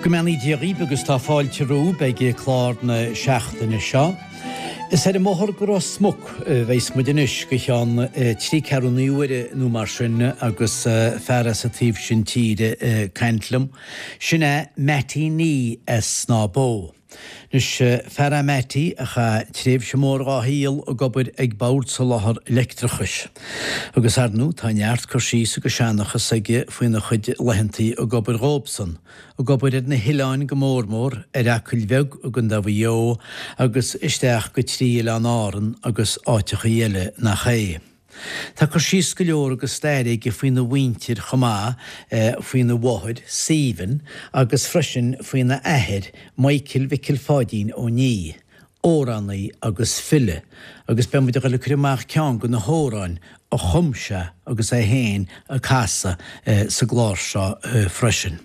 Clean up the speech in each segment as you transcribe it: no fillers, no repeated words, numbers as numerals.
Go mbeannaí Dia dhaoibh agus tá fáilte romhaibh ag clár na seachtaine seo. Is ar an mbóthar go Ros Muc a bheas muid anois go cheann trí ceathrúna uaire nó mar sin agus fear as an taobh sin tíre ag caint liom. Sin é Mattie Nee as Snáth Bó. Anois, fear é Mattie a chaith tréimhse mhór dhá shaol ag obair ag Bord Soláthar Leictreachais. Agus ar ndú tá neart cur síos agus seanchas aige faoina chuid laethantaí ag obair dhóibhsan, ag obair ar na hoileáin go mór mór, ar Acaill Bheag i gContae Mhaigh Eo agus isteach go trí Oileáin Árann agus áiteachaí eile nach é. Tá cur síos go leor agus stair aige faoina mhuintir chomh maith, faoina mháthair, Stephen, agus freisin faoina athair, Michael Mhicil Pháidín Ó Nia, amhránaí agus file, agus beidh muid ag dul ag cur amach ceann de na hamhráin a chum sé agus é féin ag casadh sa gclár seo freisin.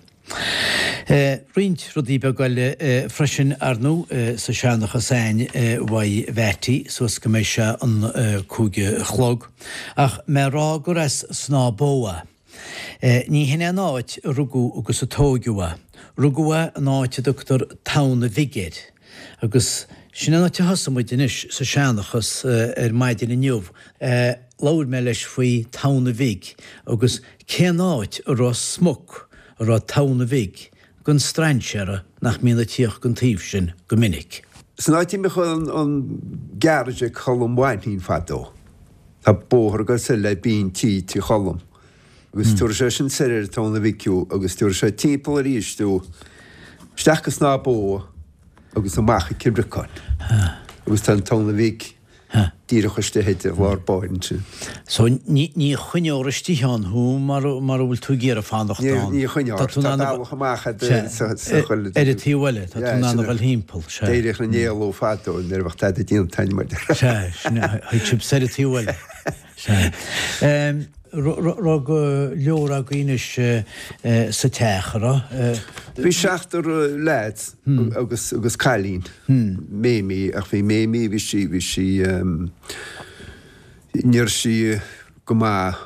Roinnt rudaí beaga eile freisin, ar ndú, sa seanchas a'ainn uaidh Mhattie suas go mbeidh sé an 5 a chlog. Ach mé a rá gur as Snáth Bó é. Ní hin é an áit a rugadh agus a tóigeadh é. Rugadh é in áit a dtugtar Tamhna Bhig air. Agus sin an áit a thosaigh muid anois sa seanchas ar maidin inniu. Labhair mé leis faoi Tamhna Bhig agus cén áit i Ros Muc a raibh Tamhna Bhig don strainséara nach mbíonn ag tíocht gon taobh sin go minic. San áit a mbíodh an garage ag Colm Mhainnín fadó. Tá bóthar ag dul soir le Binn Tí, Tigh Cholm, agus tabharfaidh sé sin soir ar an Tamhna Bhig thú agus tabharfaidh sé timpeall arís thú isteach go Snáth Bó agus amach ag Cill Bhriocáin. Agus tá an Tamhna Bhig díreach istigh i lár báire ansin. So ní choinneofar istigh ann thú mara bhfuil tú ag iarraidh fanacht ann. Ní choinneofar. Tá bealach amach sa choill. Ar an taobh eile, tá tú in ann a dhul thimpeall. Sea. D'éiríodh na n-éaló fadó nuair a bheadh tada déanta a'inn mar. Sea, sin é. Thig sibh soir an taobh eile. Sea. Raibh go leor agaibh anois sa teach, a raibh? Bhí seachtar lads agus agus cailín, Mamie, ach bhí Mamie, bhí sí, bhí sí, ní raibh sí go maith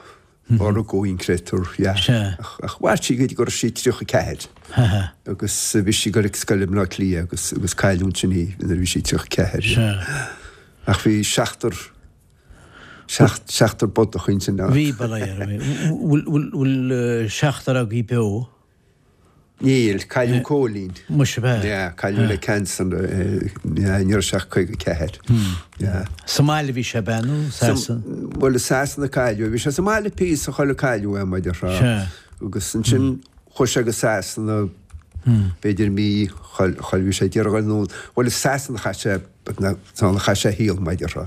ó rugadh í, an créatúr, yeah. Ach mhair sí go dtí go raibh sí 34 agus bhí sí ag dul ag scoil i mBleá Cliath agus agus cailleadh ansin í nuair a bhí sí 34. Ach bhí seachtar Seachtar bodach ansin. Bhí, bail ó Dhia oraibh. Bhfuil seachtar agaibh beo? Níl, cailleadh Cóilín. Muise ab ea? Yeah, cailleadh le cancer, yeah, ní raibh sé ach 54. Yeah. Sa mbaile a bhí sé ab ea nó Sasana? Bhuel, i Sasana a cailleadh é. Bhí sé sa mbaile píosa chular cailleadh é, mar a déarfá. Sea. Agus ansin chuaigh sé go Sasana, b'fhéidir mí, chuir, bhí sé ag iarraidh a dhul anonn. Bhuel, i Sasana a chaith sé San a chaith sé a shaol, mar a déarfá.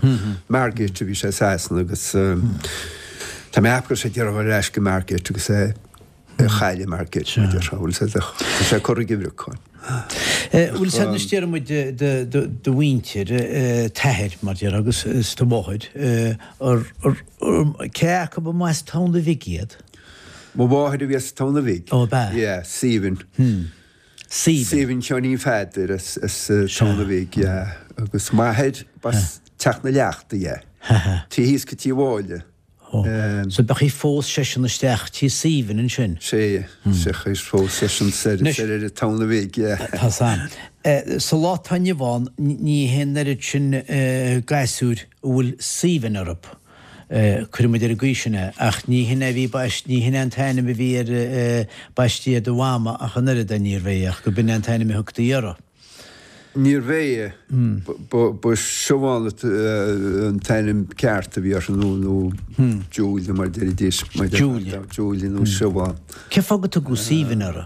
Margate a bhí sé i Sasana agus tá mé ag ceapadh go raibh sé ag iarraidh dhul ar ais go Margate agus é a chailleadh i Margate, mar a déarfá. Bhfuil sé tá sé curtha i gCill Bhriocáin. Bhfuil sé anois déarfaidh muid do mhuintir, t'athair, mar a déarfá, agus is do mháthair, cé acu a mba as Tamhna Bhig iad? Mo mháthair a bhí as Tamhna Bhig. Ó, ab ea? Yeah, Stephen. Stephen. Stephen Sheáinín Pheadair as Tamhna Bhig, yeah. Agus m'athair, b'as Teach na Leachta, yeah. Taobh thíos go Tí Mháille. So b'ea phós seisean isteach tí Stephen ansin? Sea, sea, phós seisean soir ar an Tamhna Bhig, yeah. Tá san. Sa lá atá inniu ann, ní hé an oiread sin gasúir a bhfuil Stephen orthu. Cuirfidh muid ar an gcaoi sin é. Ach ní hin é a bhí baist, ní hin é an t-ainm a bhí ar, baistí ar do mhama ach an oiread, níorbh é, ach go b'in é an t-ainm a thugtaí uirthi. Níorbh é. Ba Siobhán an t-ainm ceart a bhí uirthi nó, nó Julia mar a deiridís. Julia. Julia nó Siobhán. Cén fáth go tugadh Stephen uirthi?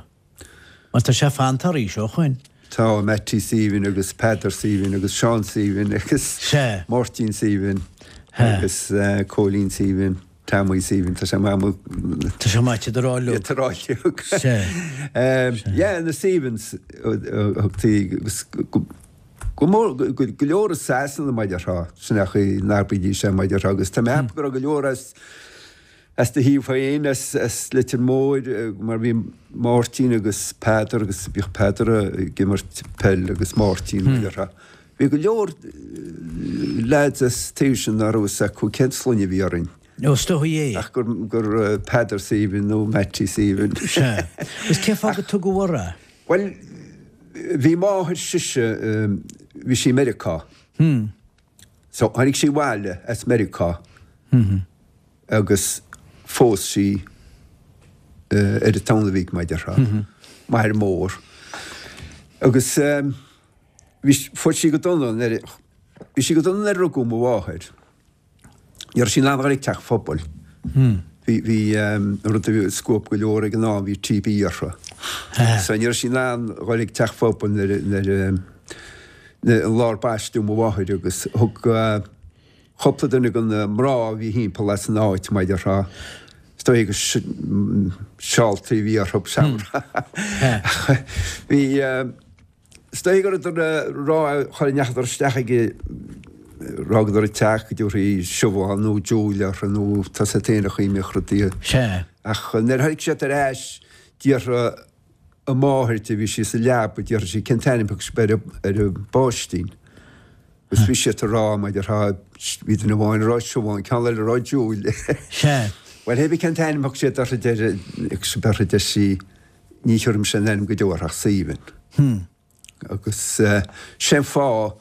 Mar tá sé fanta arís ó shoin. Tá, Mattie Stephen agus Peadar Stephen agus Seán Stephen agus Sea. Máirtín Stephen agus Cóilín Stephen, Tommy Stephen, tá sé maith mo. Tá sé maith iad a rá uilig. Iad a rá uilig. Sea. Yeah, na Stephens a thugtaí agus go mór, go leor i Sasana mar a déarfá, sin é an chaoi a n-abraídís é mar a déarfá agus tá mé ag ceapadh go raibh go leor as As do thaobh féin, as Leitir Móir, mar bhí Máirtín agus Peadar agus bhíodh Peadar ag imirt peil agus Máirtín mar a déarfá. Bhí go leor lads as taobh sin nach raibh fhios acu cén sloinne a bhí orainn. Ó, is dóigh é. Ach gur gur Peadar Stephen nó Mattie Stephen. Sea. Agus cén fáth go tugadh orthu é? Bhuel. Bhí máthair sise, bhí sí i Meiriceá. So tháinig sí abhaile as Meiriceá agus phós sí ar an Tamhnach Bhig, mar a déarfá, m'athair mór. Agus bhí, fuair sí go dona nuair, bhí sí go dona nuair a rugadh mo mháthair. Ní raibh sí in ann a dhul ag teach phobail. Bhí, bhí, an rud a bhí scuab go leor ag an am, bhí TB uirthi. So ní raibh sí in ann a dhul ag teach phobail nuair, nuair, nuair, an lá ar baisteadh mo mháthair agus thug cúpla duine de na mná a bhí thimpeall as an áit, mar a déarfá, is dóigh gur seáltaí a bhí orthu, bhí, Is dóigh go rabhadar ag rá char ndeachadar isteach ag fhágadar an teach go dtabharfaí Siobhán nó Julia orthu nó tá 's agat féin an chaoi a mbíodh rudaí. Sea. Ach nuair a tháinig siad ar ais d'fhiafraigh a máthair di, bhí sí sa leaba, d'fhiafraigh sí cén t-ainm a thug sibh ar an bpáistín. Agus bhí siad ag rá, mar a déarfá, bhí duine amháin ag rá Siobhán, ceann eile ag rá Julia. Sea. Bhuel, hé bí cén t-ainm a thug siad uirthi, deir, thug sibh uirthi, deir sí. Ní thiúrfaidh mise aon ainm go deo uirthi ach Saoibhinn. Agus sé an fáth,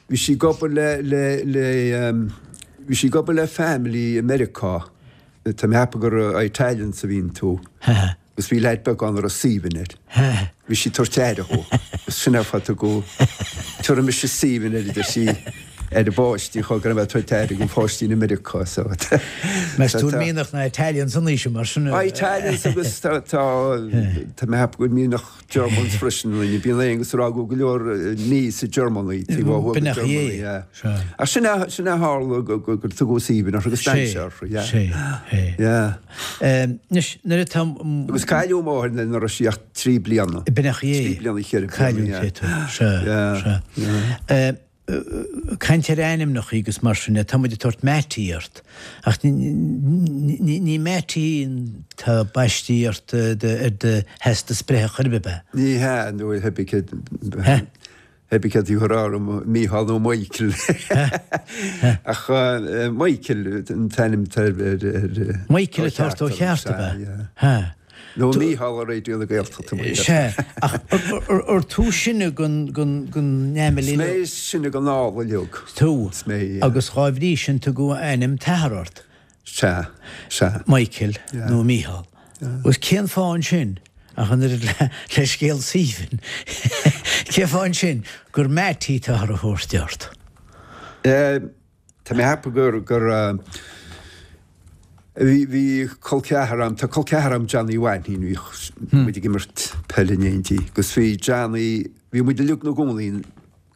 bhí sí ag obair le, le, le, bhí sí ag obair le family i Meiriceá, tá mé a cheapadh gur Italians a bhí iontu, agus bhí leaid beag ann a raibh Saoibhinn air. Bhí sí ag tabhairt aire dhó, agus sin é an fáth a tugadh, tiúrfaidh mise Saoibhinn air, a deir sí. ar an bpáistí chomh go raibh mé ag tabhairt aire don pháistín i Meiriceá so Meas tú an mianach na Italians an aois mar sin? Italians agus tá tá tá mé ag ceapadh go bhfuil mianach Germans freisin ionainn. Bíonn Aonghus ag rá go bhfuil go leor níos i Germany taobh ó thuaidh de Germany yeah. Ach sin é sin é a tharla go go gur tugadh Saoibhinn uirthi agus d'fhan sé uirthi yeah. Sé sé. Yeah. Anois nuair atá Agus cailleadh máthair nuair a raibh sí ach 3 bliana. B'in é. 3 bliana 4 bliana yeah. Cailleadh tú. Sea. Yeah. Sea. Caint ar ainmneacha agus mar sin de, tá muid ag tabhairt Mattie ort, ach ní Mattie atá baistí ort ar do theastas breithe chor ar bith, ab ea? Ní hea, nó theip céad a rá orm Mícheál nó Michael. Ach Michael an t-ainm atá ar ar Michael atá ort ó cheart, ab ea? Nó Mícheál ar Raidió na Gaeltachta mar dhea. Sea, ach ar tú sine den fhamily? Is mé is sine den ál uileag. Tú. Is mé, yeah. Agus dhá bhrí sin tugadh ainm t'athar ort. Sea, sea. Michael nó Mícheál. Agus cén fáth ansin, ach an oiread le scéal Saoibhinn, cén fáth ansin gur Mattie atáthar a thabhairt ort? Eh. Tá mé ag ceapadh gur, gur, bhí, bhí col ceathar a'm, tá col ceathar a'm Johnny Mhainnín, bhíodh muid ag imirt peile in éindí agus bhí Johnny, bhí muid uilig 'na gcónaí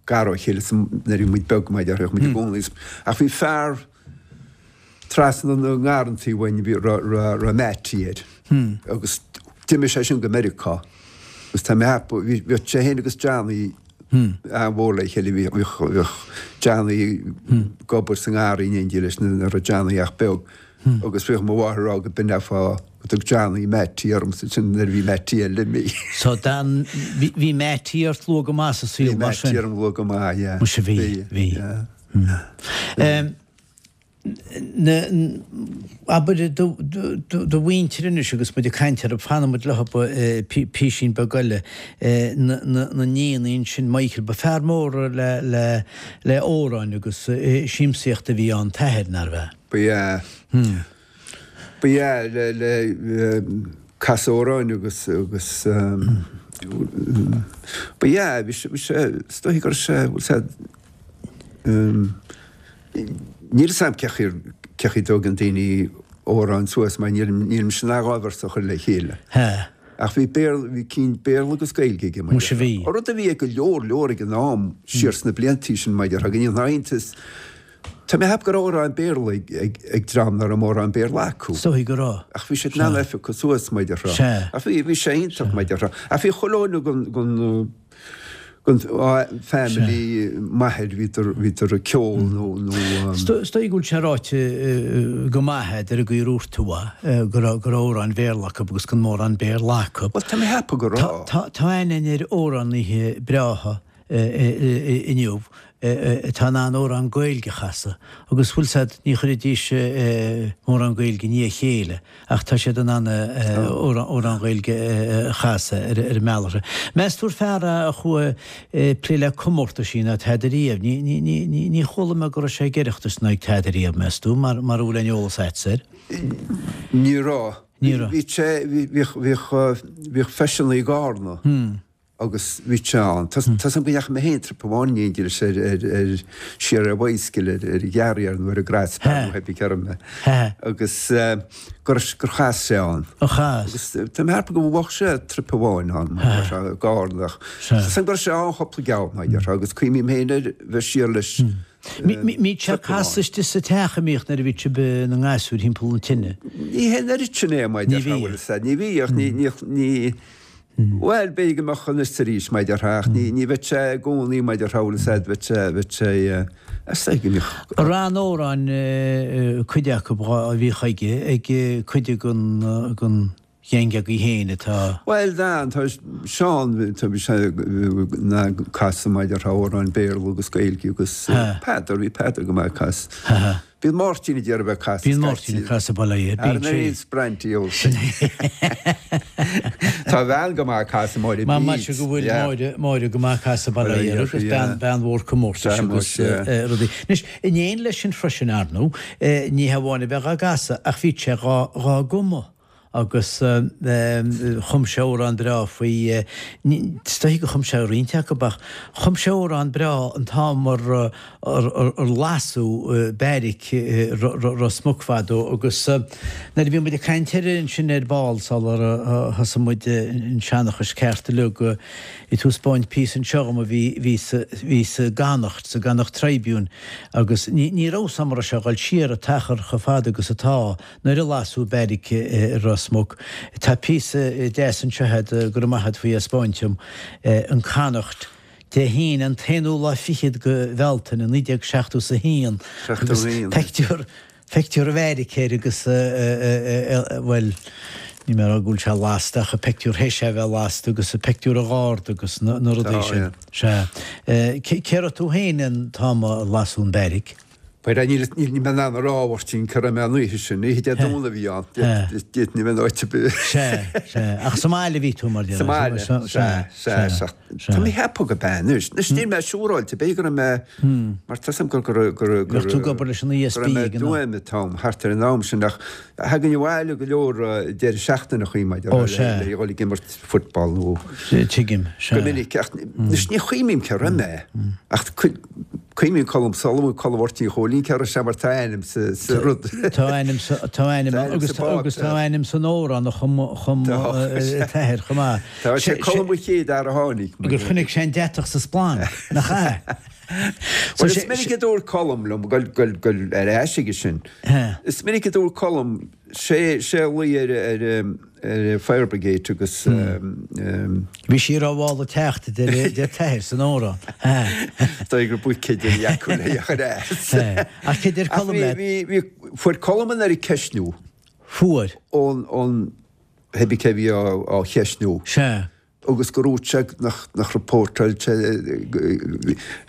gar ó chéile nuair a bhí muid beag mar a déarfá, bhíodh muid i gcónaí, ach bhí fear trasna na ngarrantaí uainn, bhí, raibh, raibh, raibh Mattie air agus d'imigh sé sin go Meiriceá agus tá mé ag ceapadh, bhí, bhíodh sé féin agus Johnny, an-mhór le chéile. Bhíodh Johnny ag obair sa ngarraí in éindí leis nuair a raibh Johnny ach beag agus bhíodh mo mháthair ag rá go b'in é an fáth go dtug Johnny Mattie ormsa ansin nuair a bhí Mattie eile imithe. So Dan, bhí Mattie ort luath go maith sa saol mar sin? Bhí Mattie orm luath go maith, yeah. Muise bhí, bhí. Yeah. Abair do mhuintir anois agus muid ag caint orthu, fanfaidh muid leo písín beag eile, na nianna ansin, Michael, ba fear mór le amhráin agus siamsaíocht a bhí ann, t'athair, nárbh ea? Ba ea. Ba ea, le casadh amhráin agus, agus ba ea, bhí sé, is dóiche go raibh sé, bhfuil sé, Níl 'fhios a'm cé chaoi cé chaoi a dtógann daoine amhráin suas mar níl nílimse in ann dhá véarsa a chur le chéile. Hea. Ach bhí Béarla, bhí cinn Béarla agus Gaeilge aige mar Muise bhí. An rud a bhí ag go leor leor ag an am siar sna bliantaí sin mar a déarfá go ndéanfá iontas. Tá mé ag ceapadh go raibh amhráin Béarla ag ag ag dream nach raibh mórán Béarla acu. Is dóigh go raibh. Ach bhí siad in ann é a phiocadh suas mar a déarfá. Sea. Ach bhí bhí sé iontach mar a déarfá. Ach bhí chuile dhuine den den Den family m'athair bhíodar bhíodar ag ceol nó nó. Is dóigh go bhfuil sé ráite go maith agat ar an gcaoi a ndúirt tú é, go raibh go raibh amhráin Bhéarla acu agus gan mórán Béarla acu. Bhuel tá mé ag ceapadh go raibh. Tá aithne ar amhránaithe breátha inniu. atá in ann amhrán Gaeilge a chasadh agus bhfuil 's a'd, ní chuirfidís mórán Gaeilge i ndiaidh a chéile ach tá siad in ann amhrán Gaeilge a chasadh ar an mbealach. Meas tú ar fear é a chuaigh ag plé le comórtaisí ná tada riamh? Ní chuala mé go raibh sé ag Oireachtas ná ag tada riamh, meas tú, mar a bhfuil aon eolas a'dsa air? Ní raibh. Ní raibh. Bhí sé, bhíodh, bhíodh, bhíodh feiseanna i gCarna. Agus bhí sé ann. Tá 's a'm go ndeachaigh mé féin trip amháin in éindí leis ar, ar, ar, siar ar bicycle ar, ar an Ghearr nó ar an Graspan nó pé cé raibh mé. Agus gur, gur chas sé ann. Ó chas. Agus tá mé ag ceapadh go bhuaigh sé trip amháin ann, mar tá sé i gCarna ach tá 's a'm go raibh sé ann cúpla geall mar déarfá agus cuimhním féin ar bheith siar leis Mbíodh sé ag casadh istigh sa teach a mbíodh nuair a bhí sibh ina ngasúir thimpeall an tine. Ní hé an oiread sin é, mar déarfá, bhfuil 'fhios a'd. Ní bhíodh, ní, ní, ní, Bhuel, b'fhéidir go mbeadh anois is arís, mar déarfá, ach ní, ní bheadh sé i gcónaí, mar déarfá, bhfuil 'fhios a'd, bheadh sé, bheadh sé, is dóigh go mbíodh. An raibh na hamhráin, cuid acu a bhíodh aige, ag cuid den, den gheaing agaibh féin atá. Bhuel, tá, tá Seán, tá, bhí sé ag casadh, mar déarfá, amhráin Béarla agus Gaeilge agus Peadar, bhí Peadar go maith ag casadh. Bíonn Máirtín ag iarraidh bheith ag casadh Bíonn Máirtín ag casadh bail ó Dhia air. Bíonn sé. Ar Sprantí ó. Sin é. Tá a bhean go maith ag casadh Máire Bede. Maise go bhfuil Máire, Máire go maith ag casadh bail ó Dhia air agus bean, bean mhór comórtais agus rudaí. Anois, in éineacht leis sin freisin, ar ndóigh, ní hamháin a bheith dhá gcasadh ach bhí sé dhá, dhá gcumadh. agus chum sé amhrán breá faoi, is dóichí gur chum sé roinnt acu ach chum sé amhrán breá an t-am ar lasadh beairic Ros Muc fadó agus nuair a bhí muid ag caint air ansin ar ball sular thosaigh muid an seanchas ceart uilig, bhí tú ag 'spáint píosa anseo dhom a bhí bhí sa bhí sa gConnacht, sa gConnacht Tribune agus ní ní raibh 's a'm an raibh sé ag dul siar an t-achar chomh fada agus atá. Nuair a lasadh beairic i Ros Muc, tá píosa deas anseo agat, go raibh maith agat faoi é a 'spáint dom, an Connacht, Dé hAoine an t-aonú lá fichead de Bhealtaine 1971 agus peictiúr, peictiúr an bheairic air agus bhuel, níl mé ag rá go bhfuil sé lasta ach an peictiúr théis é a bheith lasta agus an peictiúr an gharda agus na rudaí sin. Sea. Cé raibh tú féin an t-am a lasadh an beairic? Bhuel, níl mé in ann a rá, a Mháirtín, cá raibh mé an oíche sin. Oíche Dé Domhnaigh a bhí ann. D'fhéadfainn a bheith in áit ar bith. Sea, sea. Ach sa mbaile a bhí tú, mar Sa mbaile, sea, sea, sea. Tá mé ag ceapadh go b'ea anois. Anois níl mé siúráilte, b'fhéidir go raibh mé, mar tá 's a'm go raibh, go raibh, Bheadh tú ag obair leis an ESB ag an am. Go raibh mé i dTuaim an t-am, thart ar an am sin, ach thagainn abhaile go leor deireadh seachtaine a chuaigh muid ar le dhul ag imirt football nó. Tuigim, sea. Go minic, ach anois ní chuimhním cé raibh mé, ach cuimhním Colm Sullivan, Colm Mháirtín Chóilín, cé raibh sé mar tá a ainm sa rud. Tá a ainm sa, tá a ainm agus agus tá a ainm san amhrán a chum, chum an t-athair chomh maith. Tá sé Colm an chéad fhear a tháinig. Gur chonaic sé an deatach sa splanc, nach ea? Bhuel is minic a dúirt Colm liom, gabh, gabh, gabh ar ais aige sin, is minic a dúirt Colm, sé, sé a luigh ar, ar, ar Fire Brigade agus. Bhí sí ar mhála teacht, a deir t'athair san amhrán. Dóigh gur buicéid a bhí acu le chur as. Ach cé deir Colm leat? Bhí, fuair Colm an oiread ceistniú. Fuair. Ón, ón, pé bith cé a bhí á cheistniú. Sea. agus gur dhúirt sé nach nach rapóirteáil sé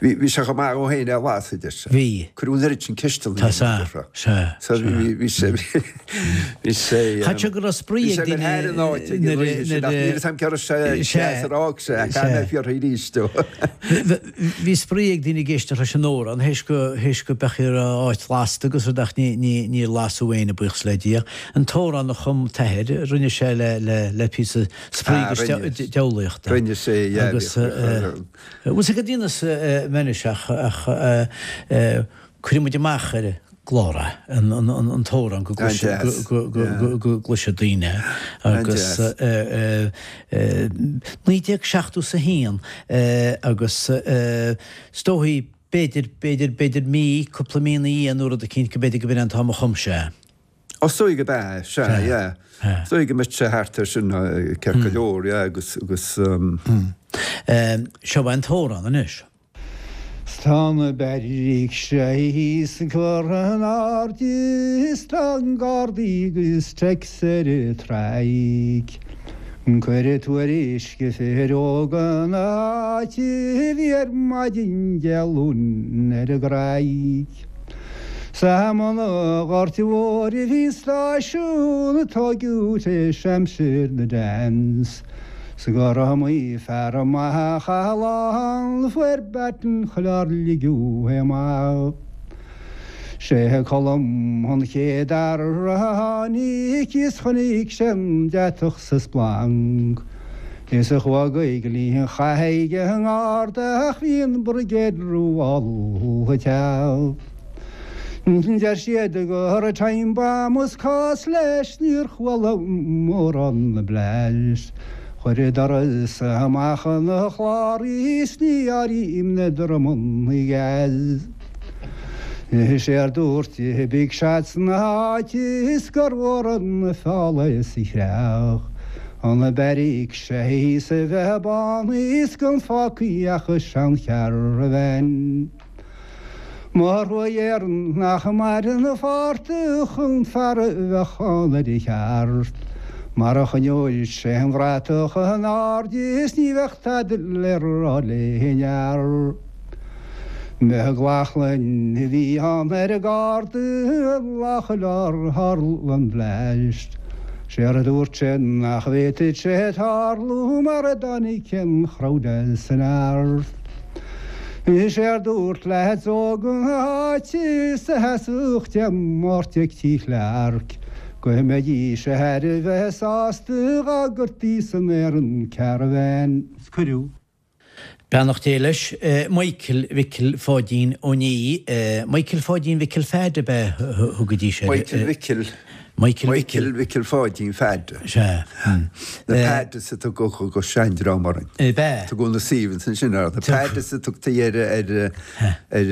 bhí bhí sé chomh maith dhó féin é a lasadh, a deir sé. Bhí. Cuireadh an oiread sin ceisteanna Tá sea, sea, So bhí bhí sé bhí sé Chaith sé go raibh spraoi bhí ag sé go daoine thar an áit ag an oíche sin ach níl 'fhios a'm cé raibh sé Sea, ar fhág sé ach caithfidh mé fiafraí arís dó. Bhí spraoi ag daoine ag éisteacht leis an amhrán théis go théis go mbeadh ar áit lasta agus rud ach ní ní níor lasadh éinne buíochas le Dia. An t-amhrán a chum t'athair rinne sé le le le píosa spraoi Ah, agus rinne. diabhlaíochta. Rinne sé, yeah. Agus bhfuil 'fhios agat ionas anois ach ach cuirfidh muid amach ar an gclár é, an an t-amhrán go An-deas, go go yeah. go go gcloisfidh daoine é. Agus An-deas. 1971 agus is dóichí b'fhéidir b'fhéidir b'fhéidir mí, cúpla mí ina dhiaidh nó rud eicínt go b'fhéidir go b'in é an t-am a chum sé é. Ó, is dóigh go b'ea, sea, yeah. Is dóigh go mbeadh sé thart ar sin, ceart go leor, yeah, agus, agus. Seo é an t-amhrán anois. 'S tá na beairic thíos curtha in airde is tá na gardaí agus Tex ar an traic. Cuireadh tuairisc fir óga na háite a bhí ar maidin Dé Luain ar an gCreig. 'S i mbun an Ghoirt Mhóir a bhí an stáisiún a tóigeadh tar éis aimsir na Dans. 'S gur iomaí fear maith a chaith a lá ann a fuair baton chular ligeadh é amach. Sé Colm an chéad fhear a tháinig is chonaic sé an deatach sa splanc is a chuaigh go linn an chatha ag an ngarda ach bhí an brigéad rómhall a teacht. Deir siad go raibh time bomb is cás leis níor chuala mórán na blast. Chuir doras amach an chlár is ní áirím na drumanna gas. Séard dúirt big shots na háite is gur mhór an feall é sa chreach an beairic sé thíos a bheith bán is gan fágtha ach a seancharavan. Mo thruaigh Éireann nach maireann a phortach an fear a bheadh ann ar a cheart mar a choinneoidh sé an bhratach in airde is ní bheadh tada le rá le haon fhear. McLaughlin a bhí ann ar an garda an lá chular tharla an blast. Séard a dúirt sé nach bhféadfadh sé tarlú mar a dtáinig an crowd as an neart. Séard dúirt leaids óga na háite is a sheasfadh Dé Máirt ag Tí Chlarke go mbeidís thar a bheith sásta dhá gcuirtí san aer an caravan. Cuireadh. Beannacht Dé leis. Michael Mhicil Pháidín Ó Niaidh, Michael Pháidín Mhicil Pheaid ab ea a thugaidís air? Michael Mhicil. Michael Mhicil. Michael Mhicil Pháidín Pheaid. Sea. Na Peaids a tugadh an seandream orainn. Ab ea? Tugadh na Stephens ansin orthu. Na Peaids a tugtaí ar ar ar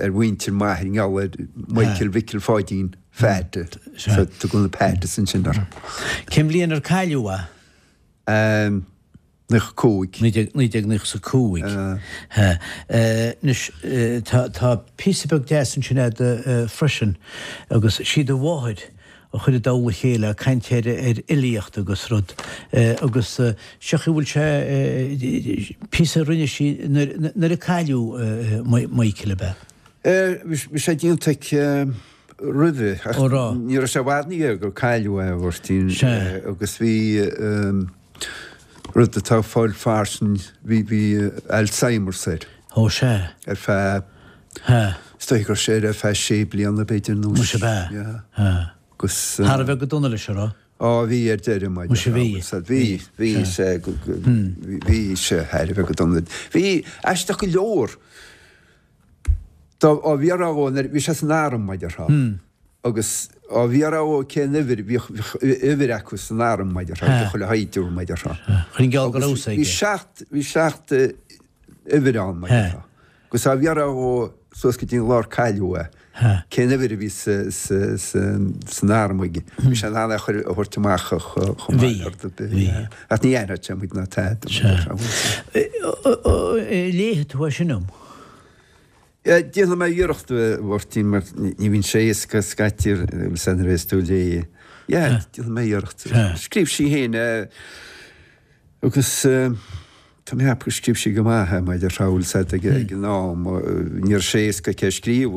ar mhuintir m'athar i ngeall ar Michael Mhicil Pháidín Pheaid. So tugadh na Peaids ansin orthu. Cén bhliain ar cailleadh é? 95. 1995. Anois, tá píosa beag deas ansin a'd freisin agus sí do mháthair a chuir i dtoll a chéile, ag caint ar fhilíocht agus rud agus seo chaoi a bhfuil sé, píosa a rinne sí nuair a cailleadh Michael, ab ea? Bhí sé déanta aici roimhe ach ní raibh sé i bhfad ina dhiaidh gur cailleadh é, a Mháirtín, agus bhí. Rud atá ag fáil fairsing, bhí, bhí Alzheimer's air. Ó sea. Ar feadh, is dóigh go raibh sé air ar feadh sé bliana b'fhéidir nó. Muise ab ea? Yeah. Agus. Thar a bheith go dona leis, an raibh? Á bhí ar deireadh maidir. Muise bhí. Bhí, bhí sé, bhí sé thar a bheith go dona. Bhí aisteach go leor. Dá bhfiafrófá dhó nuair, bhí sé san arm mar a déarfá. Agus á bhfiafrófá dhó cén uimhir, bhíodh uimhir acu san arm mar a déarfá, ag chuile shaighdiúir mar a déarfá. Chuir an geall go raibh aige. Bhí seacht, bhí seacht uimhir ann mar a déarfá. Agus á bhfiafrófá dhó suas go dtí an lá ar cailleadh é, cén uimhir a bhí san arm aige. Bhí sé in ann é a chur, a thabhairt amach chomh maith le rud ar bith. Ach ní aithneodh sé muid ná tada. Léifidh tú é sin dom? Déanfaidh mé iarracht, a Mháirtín, mar ní bhíonn sé éasca scaití agus nuair a bhéas tú ag léamh. Yeah, déanfaidh mé iarracht. Scríobh sí féin é agus tá mé ag ceapadh gur scríobh sí go maith é, mar a déarfá, bhfuil 's a'd ag an am, ní raibh sé éasca aici é a scríobh,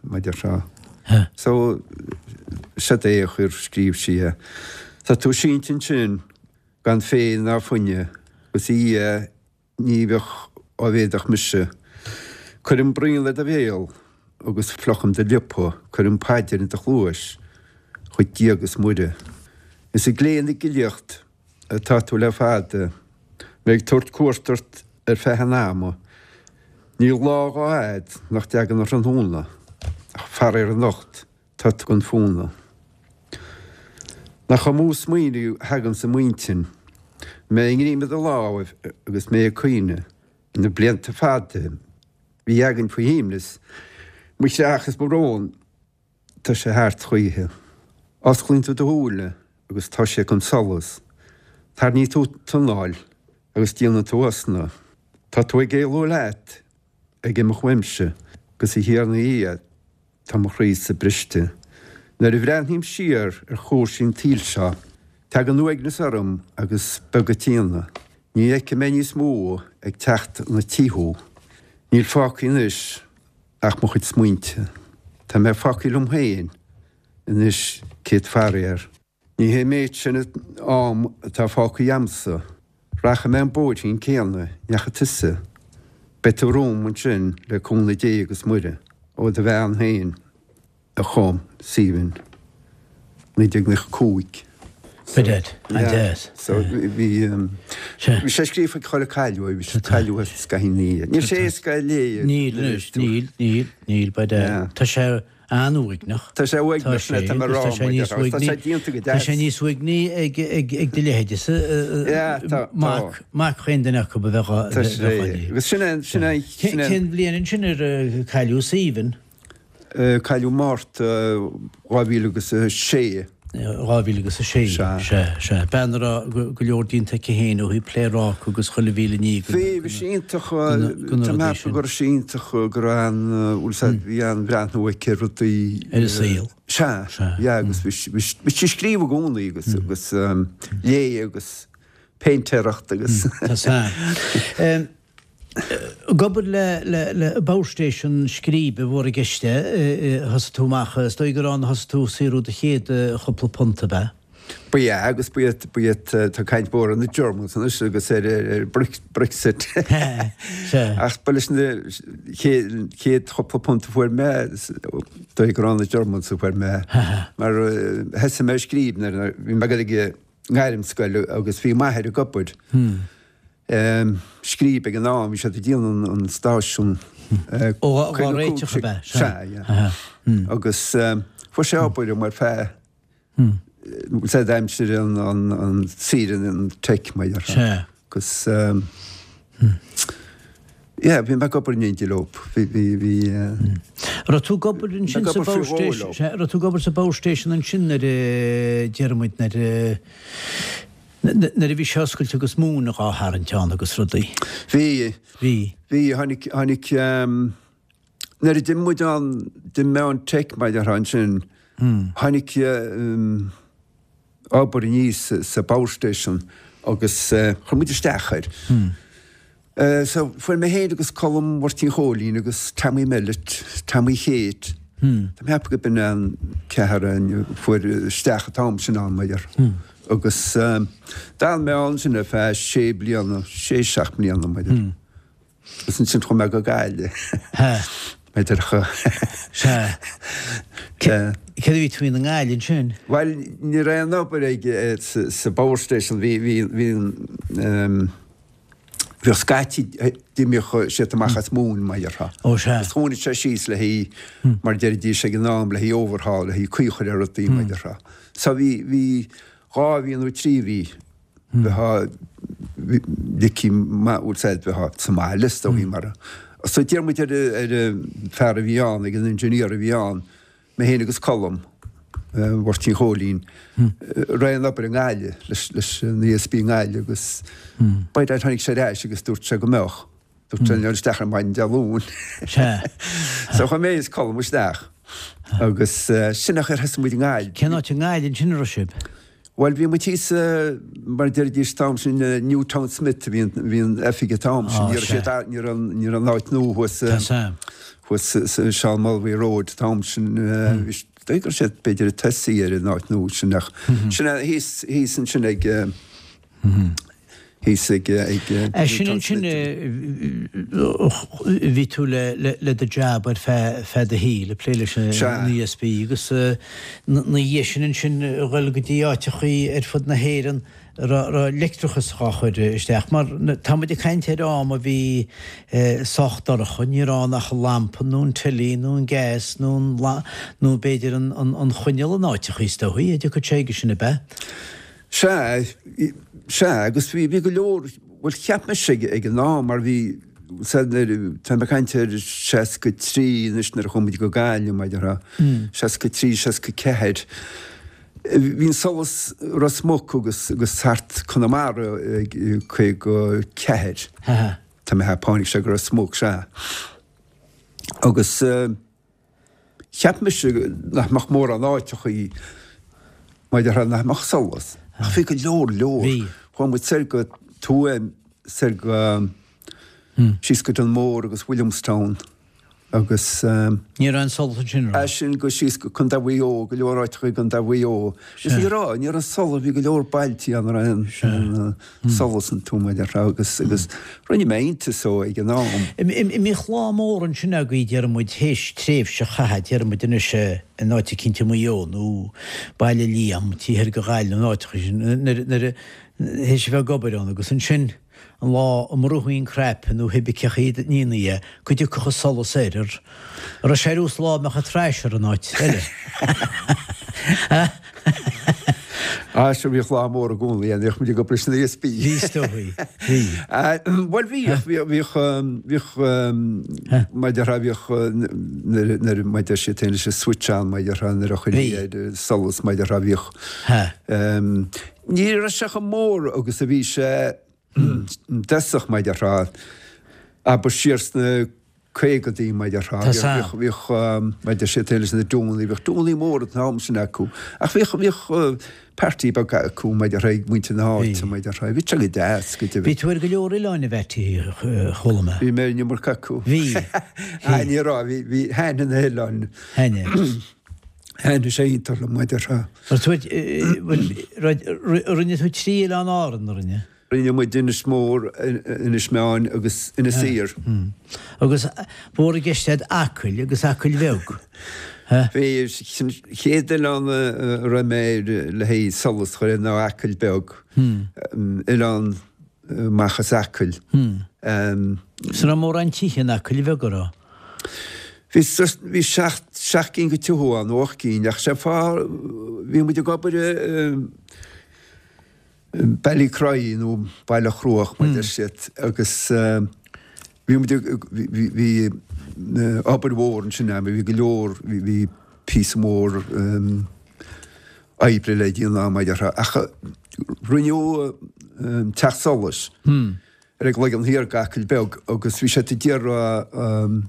mar a déarfá. So, seod é a chuir, scríobh sí é. Tá tú sínte ansin gan féith ná foighne agus a Dhia Ní bheadh á bhféadfadh mise. Cuirim braon le do bhéal agus fliuchaim do liopa, cuirim paidir in do chluais chuig Dia agus Muire. Is ag léamh na gcillíocht atá tú le fada, mé ag tabhairt cuairt ort ar feadh an ama. Níl lá dhá fhad nach dtagann an tráthnóna, ach faraor anocht Tá tú gan fónamh. Nach amú smaoineamh a thaganns i m'intinn, mé i ngreim do láimh agus mé ag caoineadh, na blianta fada a bhí againn faoi shuaimhneas, mo chreach is mo bhrón, tá sé thart choíche. Osclaíonn tú do shúile agus tá sé gan solas, tarraingíonn tú t'anáil agus déanann tú osna, tá tú ag éalú leat, ag imeacht uaimse, agus a Thiarna Dhia, Tá mo chroí-sa briste. Nuair a bhreathnaím siar ar chúrsaí an tsaoil seo. Tagann uaigneas orm agus beag an t-ionadh. Ní fheicfidh mé níos mó ag teacht 'na tí thú. Níl fágtha anois ach mo chuid smaointe. Tá mé fágtha liom féin anois céad faraor. Ní hé an méid sin am atá fágtha a'msa. Rachaidh mé an bóithrín céanna ndeachaigh tusa. Beidh tú romham ansin le cúnamh Dé agus Muire. Ó do bhean féin a chum Stephen, 1995. Brilliant, an-deas. So bhí bhí sé scríofa ag chuile cailleadh é, bhí sé cailleadh scaitheamh ina dhiaidh. Níl sé éasca a léamh. Níl anois, níl, níl, níl, but tá sé an-uaigneach. Tá sé uaigneach, sin é, tá mé ag rá, tá sé, tá sé déanta go deas. Tá sé níos uaigní ag ag do leithéidese, mac, mac chaon duine acu a bheadh á Tá sé, agus sin é, sin é, sin é. Cén bhliain ansin ar cailleadh Stephen? Cailleadh Márta 2006. 2006, sea, sea. Bean a raibh go leor déanta aici féin ó thaobh pléaráca agus chuile mhíle ní go na rudaí sin. Bhí, bhí sí iontach, tá mé ag ceapadh go raibh sí iontach, go raibh an, bhfuil 'fhios a'd, bhí an-bhreathnú aici ar rudaí. Ar an saol. Sea, yeah, agus bhí sí, bhí sí ag scríobh i gcónaí agus, agus léigh agus péintéireacht agus. Tá sea. Ag obair le Power Station Scríbe mhór i gceist é, thosaigh tú amach, is dóigh gur ann a thosaigh tú ag saothrú do chéad chúpla punt, ab ea? Ba ea, agus ba iad, ba iad, tá caint mhór ar na Germans anois agus ar, ar Brexit. Ach ba leis na chéad chúpla punt a fuair mé, is dóigh gur ó na Germans a fuair mé. Mar thosaigh mé ag scríobh nuair a bhí mé ag dul ag an ngairmscoil agus bhí m'athair ag obair. Scríb ag an am, bhí siad ag déanamh an stáisiún. Ó, á réiteach ab ea? Sea, yeah. Agus fuair sé obair agam ar feadh, said aimsir an saoire an teic, mar dhea. Sea. Agus, yeah, bhí mé ag obair in éindí leo. Bhí, bhí, bhí. Raibh tú ag obair ansin sa Power Station? Sea, raibh tú ag obair sa Power Station ansin nuair a, déarfaidh muid, nuair a, Nuair a bhí sé oscailte agus móin dhá tharraingt ann agus rudaí. Bhí. Bhí. Bhí, tháinig, tháinig, nuair a d'imigh muid ann, d'imigh mé ón Tech mar a déarfá ansin, tháinig obair aníos sa Power Station agus chuir muid isteach air. So, fuair mé féin agus Colm Mháirtín Chóilín agus Tommy Mellett, Tommy Kate, tá mé ag ceapadh go b'in an ceathrar a fuair isteach an t-am sin ann, mar a déarfá. Agus d'fhan mé ann sin ar feadh sé bliana, sé, seacht mbliana, mar a déarfá. Agus ansin chuaigh mé go Gaillimh. Mar a déarfá. Sea. Céard a bhí tú i nGaillimh ansin? Bhuel, ní raibh aon obair ag, sa Power Station, bhí, bhí, bhí an, Bhíodh scaití d'imíodh siad amach as móin, mar a déarfá. Ó sea. Agus tháinig sé síos le haghaidh, mar a deiridís ag an am, le haghaidh overhaul, le haghaidh caoi a chur ar rudaí, mar a déarfá. So bhí, bhí dhá mhí nó trí mhí, bheifeá, ligtí, bhfuil 's a'd, bheifeá sa mbaile is dóigh mar a. So d'iarr muid ar, ar an fear a bhí ann, ag an engineer a bhí ann, Mé féin agus Colm Mháirtín Chóilín, raibh aon obair i nGaillimh leis an ESB i nGaillimh agus by dad tháinig sé ar ais agus dúirt sé go mbeadh. Dúirt sé dul isteach ar maidin Dé Luain. So chuaigh mé is Colm isteach agus sin an chaoi ar thosaigh muid i nGaillimh. Cén áit i nGaillimh ansin a raibh sibh? Bhuel, bhí muid thíos, mar a deiridís an t-am sin, Newtownsmith a bhí bhí an oifig an t-am sin. Ní raibh siad, ní raibh, ní raibh an áit nua thuas, thuas sa Seán Mulvey Road an t-am sin. Bhí, dóigh go raibh siad b'fhéidir ag tosaí ar an áit nua sin ach sin é thíos, thíos ansin ag, thíos ag É sin ansin bhí tú le do jab ar feadh do shaoil, ag plé leis an ESB agus na dhiaidh sin ansin a dhul go dtí áiteachaí ar fud na hÉireann a raibh leictreachas dhá chur isteach. Mar tá muid ag caint ar am a bhí sách dorcha, ní raibh ann ach an lampa nó an teilí nó an gas nó an nó b'fhéidir an choinneal in áiteachaí is dóichí, a dtiocfadh sé chuige sin ab ea? Sea, sea, agus bhí, bhí go leor, bhuel cheap mise ag, ag an am mar bhí, sea, nuair, tá mé ag caint ar 63 anois nuair a chuaigh muid go Gaillimh, mar a déarfá, 63, 64, bhí an solas Ros Muc agus, agus thart Conamara ag 54, tá mé ag ceapadh, tháinig sé go Ros Muc, sea. Agus. Cheap mise nach mbeadh mórán áiteachaí mar a déarfá nach mbeadh solas. Ach bhí go leor leor. Bhí. Chuaigh muid soir go Tuaim, soir go, síos go Dunmore agus Williamstown agus. Ní raibh aon solas ansin, raibh? As sin go síos go Contae Mhaigh Eo, go leor áiteacha i gContae Mhaigh Eo. Agus ní raibh, ní raibh solas, bhí go leor bailtí ann a raibh aon solas iontu, mar a déarfá, agus, agus rinne mé iontas dó ag an am. An mbíodh lá mór ansin agaibh, déarfaidh muid, théis tréimhse a chaitheamh, déarfaidh muid anois, in áit eicínt i Maigh Eo nó Baile Liam, taobh thoir de Ghaillimh, na áiteacha sin, nuair, nuair a, théis a bheith ag obair ann agus ansin an lá a mbrúfaí an cnaipe nó cibé cén chaoi a ndéanfaí é, go dtiocfadh an solas air, an raibh sé ar nós lá a mbeadh an trash ar an áit eile. Ah, sure bhíodh lá mór i gcónaí ann, bhíodh muid ag obair leis an ESB. Bhí, is dóigh, bhí. Bhuel bhíodh, bhíodh, bhíodh, mar a déarfá, bhíodh nuair, mar a deir siad féin leis an switch on, mar a déarfá, nuair a chuirtí ar solas, mar a déarfá, bhíodh. Ní raibh sé chomh mór agus a bhí sé i dtosach, mar a déarfá, abair siar sna caogadaí, mar a déarfá. Bhíodh, bhíodh, mar a deir siad féin leis na dúnaí, bhíodh dúnaí móra an t-am sin acu. Ach bhíodh, bhíodh party beag acu, mar a déarfá, ag muintir na háite, mar a déarfá. Bhí sé go deas, go deimhin. Bhí tú ar go leor oileáin a Mheaití, chuala mé. Bhí mé ar an iomarca acu. Bhí. Ah, ní raibh, bhí, bhí, thaitnigh na hoileáin. Thaitnigh. Thaitnigh sé iontach liom, mar a déarfá. Rinne tú trí oileán Árann, a rinne? Rinne muid Inis Mór, Inis Meáin agus Inis Oírr. Agus ba mhór i gceist agat Acaill agus Acaill Bheag. Bhí, an chéad oileán a raibh mé air le haghaidh solas a chur air ná Acaill Beag, oileán amach as Acaill. Is an raibh mórán tithe in Acaill Bheag, an raibh? Bhí, bhí seacht, seacht gcinn de tithe ann, nó ocht gcinn, ach sé an fáth, bhí muid ag obair i, Ballycroy nó Baile Chruaich mar a deir siad agus bhí muid ag, bhí, bhí obair mhór ansin ann, bhí go leor, bhí, bhí píosa mór oibre le déanamh mar a déarfá ach rinneadh teach solais ar an gCloigeann Thiar d'Acaill Beag agus bhí siad ag iarraidh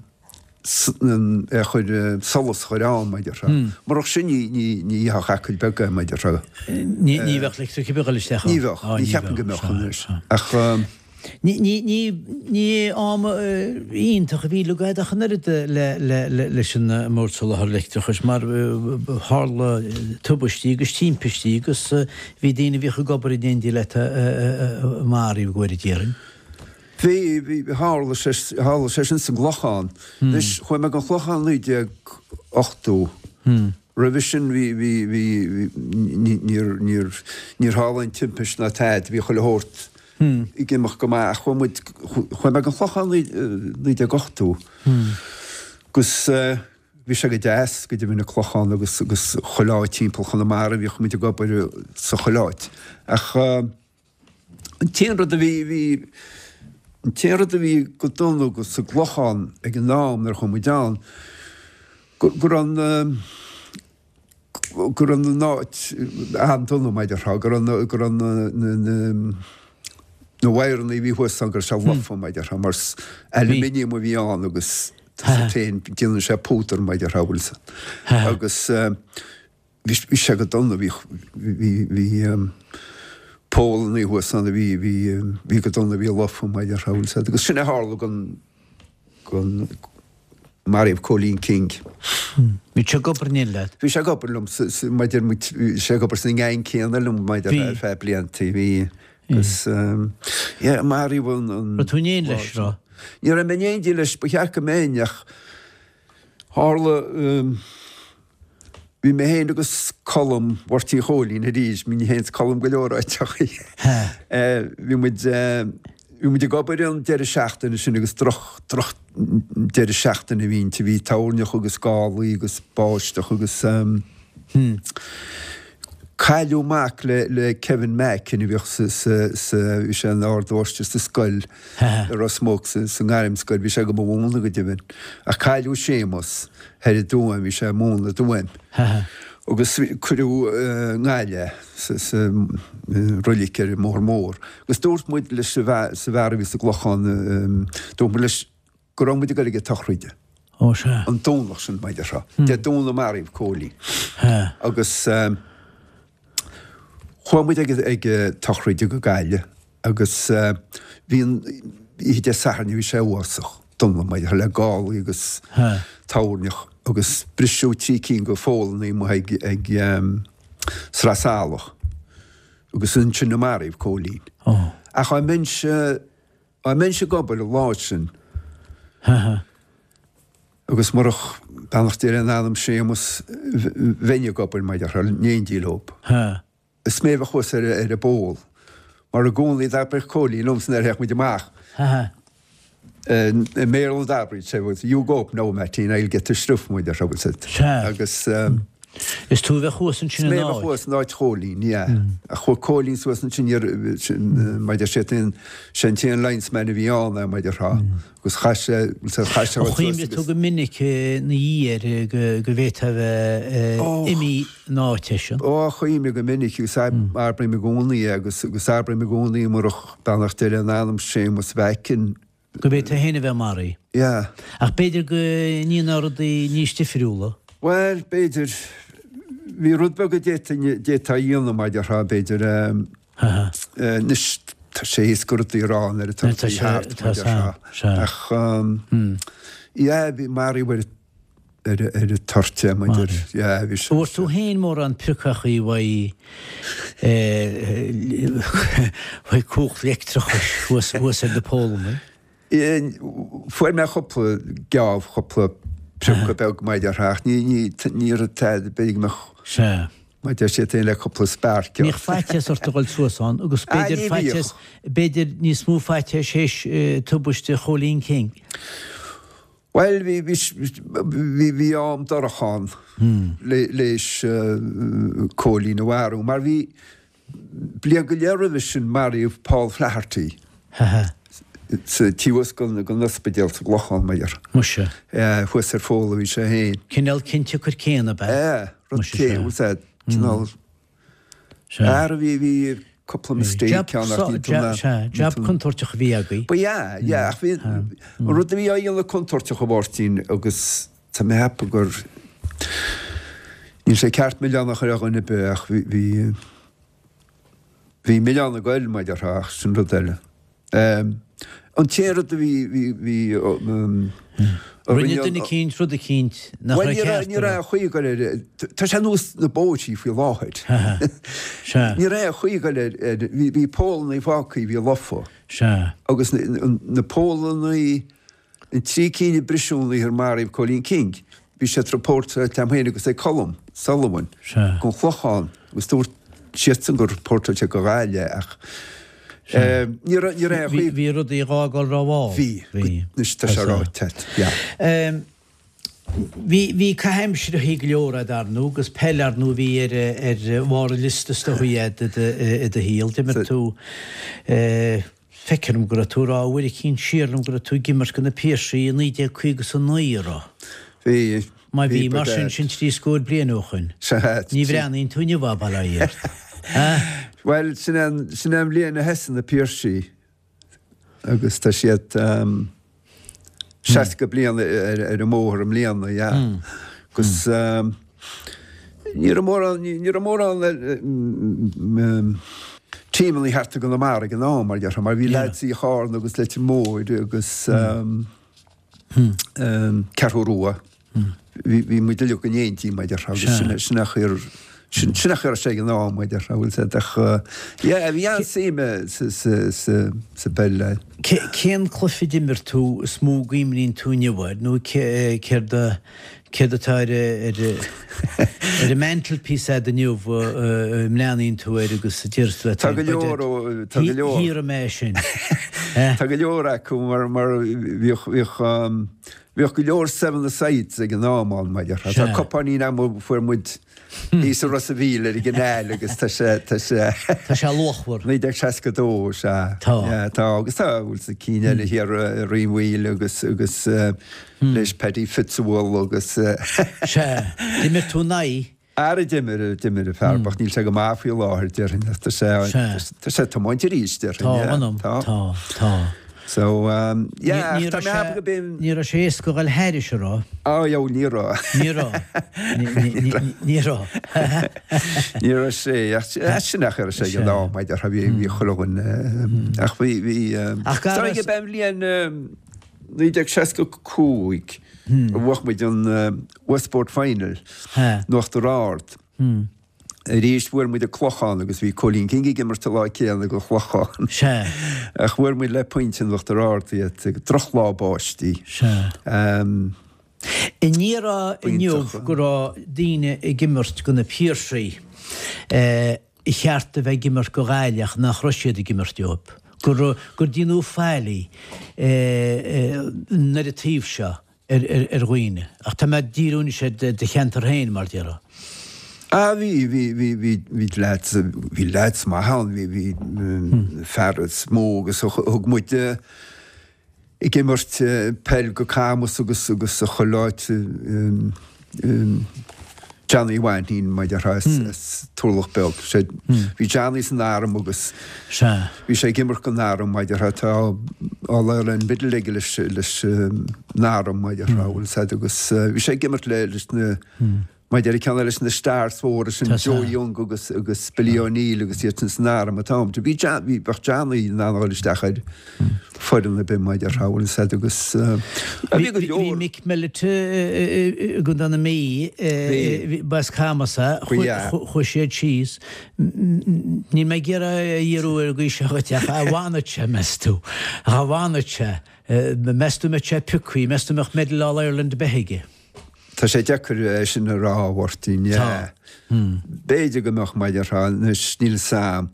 é a chur, solas a chur ann, mar a déarfá. Murach sin ní, ní, ní fheicfeadh Acaill Beag é, mar a déarfá. Ní, ní bheadh leictreachas ar bith ag dul isteach ann. Ní bheadh, ní cheapaim go mbeadh anois. Ach. Ní, ní, ní, ní am iontach a bhí agat ach an oiread le, le, le, leis an mBord Soláthair Leictreachais mar tharla tubaistí agus timpistí agus bhí daoine a bhíodh ag obair in éindí leat maraithe go háirid déarfainn. Bhí, bhí, tharla sé, tharla sé sin sa gClochán. Anois, chuaigh mé go an Clochán 1980. Roimhe sin bhí, bhí, bhí, ní, níor, níor, níor tharla aon timpist ná tada, bhí chuile shórt ag imeacht go maith ach chuaigh muid, chuaigh mé go an Clochán 1980 agus bhí sé go deas, go deimhin an Clochán agus, agus chuile áit timpeall Chonamara, bhíodh muid ag obair sa chuile áit. Ach. An t-aon rud a bhí, bhí, an t-aon rud a bhí go dona go sa gClochán ag an am nuair a chuaigh muid ann, go, go raibh an, go raibh an áit an-dona mar a déarfá, go raibh na, go raibh na, na, na, na wire-anna a bhí thuas ann, go raibh sé lofa mar a déarfá, mar aluminium a bhí ann agus tá sé féin, déanann sé púdar mar a déarfá, bhfuil 's agus. Bhí sé go dona, bhí, bhí, bhí poll-annaí thuas ann a bhí, bhí, bhí go dona, bhí lofa mar a déarfá, bhfuil 's agat, agus sin a tharla gon, gon, maraíodh Cóilín King. Bhí sé ag obair in éindí leat? Bhí sé ag obair liom, sa, sa, mar a deir muid, bhí sé ag obair sa ngeaing céanna liom mar a déarfá ar feadh bliantaí, bhí, agus, yeah, maraíodh an, an. Raibh tú in éindí leis, raibh? Ní raibh mé in éindí leis, ba cheart go mbeinn ach tharla, Bhí mé féin agus Colm Mháirtín Chóilín arís, bhí mé féin is Colm go leor áiteachaí. Bhí muid, bhí muid ag obair an deireadh seachtaine sin agus droch, droch deireadh seachtaine a bhí inti, bhí toirneach agus gálaí agus báisteach agus cailleadh mac le, le Kevin Mackin a bhíodh sa, sa, sa, bhí sé ina ardmháistir sa scoil i Ros Muc, sa, sa ngairmscoil, bhí sé go mo mhúineadh go deimhin. Ach cailleadh Séamus. Thoir i dTuaim, bhí sé ag múineadh i dTuaim. Agus cuireadh i nGaillimh sa roilig ar an mBóthar Mór. Agus dúirt muid leis an bhfear a bhí sa gClochán, dúirt muid leis go raibh muid ag dul ag an tsochraid. Ó sea. An Domhnach sin, mar a déarfá. Dé Domhnaigh a maraíodh Cóilín. Agus. Chuaigh muid ag ag tsochraide go Gaillimh agus bhí an oíche Dé Sathairn bhí sé uafásach dona mar le gálaí agus toirneach agus briseadh 3 cinn de pholannaí amuigh ag ag Sraith Salach agus ansin a maraíodh Cóilín. Ach dá mbeinnse dá mbeinnse ag obair an lá sin agus murach beannacht Dé lena anam Séamus bheinn ag obair mar déarfá in éindí leob. Is mé a bheadh thuas ar an bpoll mar i gcónaí d'abraíodh Cóilín liomsa nuair a théadh muid amach. I mBéarla d'abraíodh sé, you go up now Mattie and I'll get the stuff mar déarfá bhfuil 's a'd. Agus. Is tú a bheadh thuas ansin in áit. Is mé a bheadh thuas in áit Chóilín, yeah. Ach chuaigh Cóilín suas ansin, mar deir sé, sé an t-aon linesman a bhí ann é, mar déarfá. Agus chaith sé, chaith sé suas agus. Chuimhnigh tú go minic ina dhiaidh air go bhféadfá a bheith imithe ina áit eisean? Ó, chuimhnigh go minic agus abraím i gcónaí é agus agus abraím i gcónaí murach beannacht Dé lena anam Séamus Mheaic. Go bhféadfá féin a bheith maraithe. Yeah. Ach b'fhéidir go ndéanfá rudaí níos difriúla. Bhuel, b'fhéidir. Bhí rud beag a d'fhéadfá a dhéanamh, mar déarfá, b'fhéidir. Anois, tá sé éasca rudaí a rá nuair atá rudaí thart, mar déarfá. Ach, yeah, bhí maraíodh ar ar an toirt é, mar deir, yeah, bhí sé. Bhfuair tú féin mórán priocachaí uaidh uaidh cumhacht leictreachais thuas thuas ar na pólannaí? Fuair mé cúpla geábh, cúpla priocadh beag mar déarfá, ach ní, ní, ní raibh tada, b'fhéidir go mbeadh, Sea. mar deir siad féin le cúpla spark. Bhíodh faitíos ort a dhul suas ann agus b'fhéidir faitíos, b'fhéidir níos mó faitíos théis tubaiste Chóilín King. Bhuel, bhí, bhí, bhí, bhí am dorcha ann le, léis Cóilín a mharú, mar bhí, bliain go leith roimhe sin maraíodh Paul Flaherty sa taobh thuas den ospidéal sa gClochán, mar déarfá. Muise. Thuas ar pholl a bhí sé féin. Cineál ciontsiocair céanna, ab ea? Ea, rud céanna, bhfuil 's a'd, cineál, Ara bhí, bhí cúpla mistake ann ach ní tú na. Sea, jab contúirteach a bhí agaibh. Ba ea, yeah, ach bhí, an rud a bhí á dhéanamh contúirteach a Mháirtín agus tá mé ag ceapadh gur, níl sé ceart milleán a chur ar dhuine ar bith ach bhí, bhí, bhí milleán ag goil mar déarfá ach sin rud eile. An t-aon rud a bhí, bhí, bhí, a Rinne duine eicínt rud eicínt nach raibh ceart Bhuel, ní raibh aon chaoi ag goil ar, tá sé ar nós na bóithrí faoi láthair. Sea. Ní raibh aon chaoi ag goil ar, ar, bhí, bhí pólannaí fágtha, bhí lofa. Sea. Agus na, na pólannaí, An 3 cinn a briseadh an oíche ar maraíodh Cóilín King, bhí siad rapóirteáilte agam féin agus ag Colm Sullivan gon Chlochán agus dúirt siadsan gur rapóirteáil siad go Gaillimh ach ní raibh aon chaoi. Bhí rudaí á bhfágáil rómhall. Bhí. Anois tá sé ráite agat. Yeah. Bhí, bhí caitheamh aimsire go leor a'd ar ndóigh agus peil ar ndóigh a bhí ar, ar bharr an liosta is dóigh a'd i do shaol. D'imir tú Feictear dom go raibh tú ag rá uair eicínt siar liom go raibh tú ag imirt do na Piarsaigh i 1959, an raibh? Bhí. Má bhí, mar sin, sin trí scór bliain ó shoin. Sea. Ní bhreathnaíonn tú inniu, bail ó Dhia ort. Ha? Bhuel, sin é an, sin é an bhliain a thosaigh na Piarsaigh agus tá siad 60 bliain ar an mbóthar i mbliana, yeah. Agus ní raibh mórán, ní raibh mórán tímeanna thart i gConamara ag an am, mar déarfá, mar bhí lads i Charna agus Leitir Móir agus Ceathrú Rua. Bhí muid uilig in éindí, mar déarfá, agus sin sin a chuir sin sin a chuir sé ag an am, mar déarfá, bhfuil 's a'd ach yeah, bhí an-suim sa sa sa sa bpeil. Cén cluiche a d'imir tú is mó a gcuimhníonn tú inniu air nó céard a céard atá ar ar ar an mantelpiece a'd inniu a mbreathnaíonn tú air agus a deir tú leat Tá go leor ó tá go leor. Shaothraigh mé é sin. Tá go leor acu mar mar bhíodh bhíodh Bhíodh go leor seven-a-sides ag an am ann, mar déarfá. Tá cupáinín agam a fuair muid thíos i Ros a' Mhíl ar an gcanal agus tá sé, tá sé. Tá sé luachmhar. 1962, sea. Tá. Yeah, tá, agus tá, bhfuil 's a'd cinn eile thiar i Rinn Mhaoile agus, agus leis Paddy Fitzwell agus. Sea. D'imir tú in aghaidh. Ara d'imir, d'imir an fear bocht, níl sé go maith faoi láthair, déarfainn, ach tá sé, tá sé ag tiomáint arís, déarfainn. Tá, mh'anam, tá. Tá, tá. So, yeah, ach tá mé ag ceapadh go b'in. Ní raibh sé éasca a dhul thairis, an raibh? Oh, yeah, ní raibh. Ní raibh. Ní raibh. Ní raibh sé, ach sin nach raibh sé ag an am, maidir, bhí, bhí chuile dhuine, ach bhí, bhí, Ach gar is dóigh go b'é an bhliain 1965 a bhuaigh muid an Westport Final in Uachtar Ard. Arís bhuail muid an Clochán agus bhí Cóilín King ag imirt an lá céanna do Chlochán. Sea. Ach bhuail muid le pointe in Uachtar Ard iad ag drochlá báistí. Sea. An ndéarfá inniu go raibh daoine ag imirt do na Piarsaigh ba cheart a bheith ag imirt do Ghaillimh ach nach raibh siad ag imirt dóibh? Gur gur déanadh faillí ar an taobh seo? ar dhaoine. Ach tá mé ag díriú anois ar do cheantar féin, mar déarfá. Ah, bhí, bhí, bhí, bhí, bhí leaids, bhí leaids maith ann, bhí, bhí fear is mó agus thug muid ag imirt peil go Camus agus, agus a chuile áit, Johnny Mhainnín, mar déarfá, as Turlach Beag. Sé, bhí Johnny san arm agus bhí sé ag imirt don arm, mar déarfá, tá All Ireland medal aige leis, leis an arm, mar déarfá, bhfuil fhios a'd, agus bhí sé ag imirt le, leis na, mar déarfá, ceann leis na stars mhóra sin, Joe Young agus, agus Billy O'Neill agus iad sin san arm an t-am. Bhí John, bhí, bheadh Johnny in ann a dhul isteach ar foireann ar bith, mar déarfá, bhfuil fhios a'd, agus bhí go leor. Bhí Mick Mellett i gContae na Mí, ba as Camus é, chuaigh siad síos. Níl mé ag iarraidh a dhíriú ar an gcaoi seo dhuit ach dá bhfanfadh sé, meas tú, dá bhfanfadh sé, meas tú mbeadh sé pioctha, meas tú mbeadh medal All Ireland ar bith aige? Tá sé deacair é sin a rá, a Mháirtín, yeah. B'fhéidir go mbeadh, mar déarfá, anois níl fhios a'm.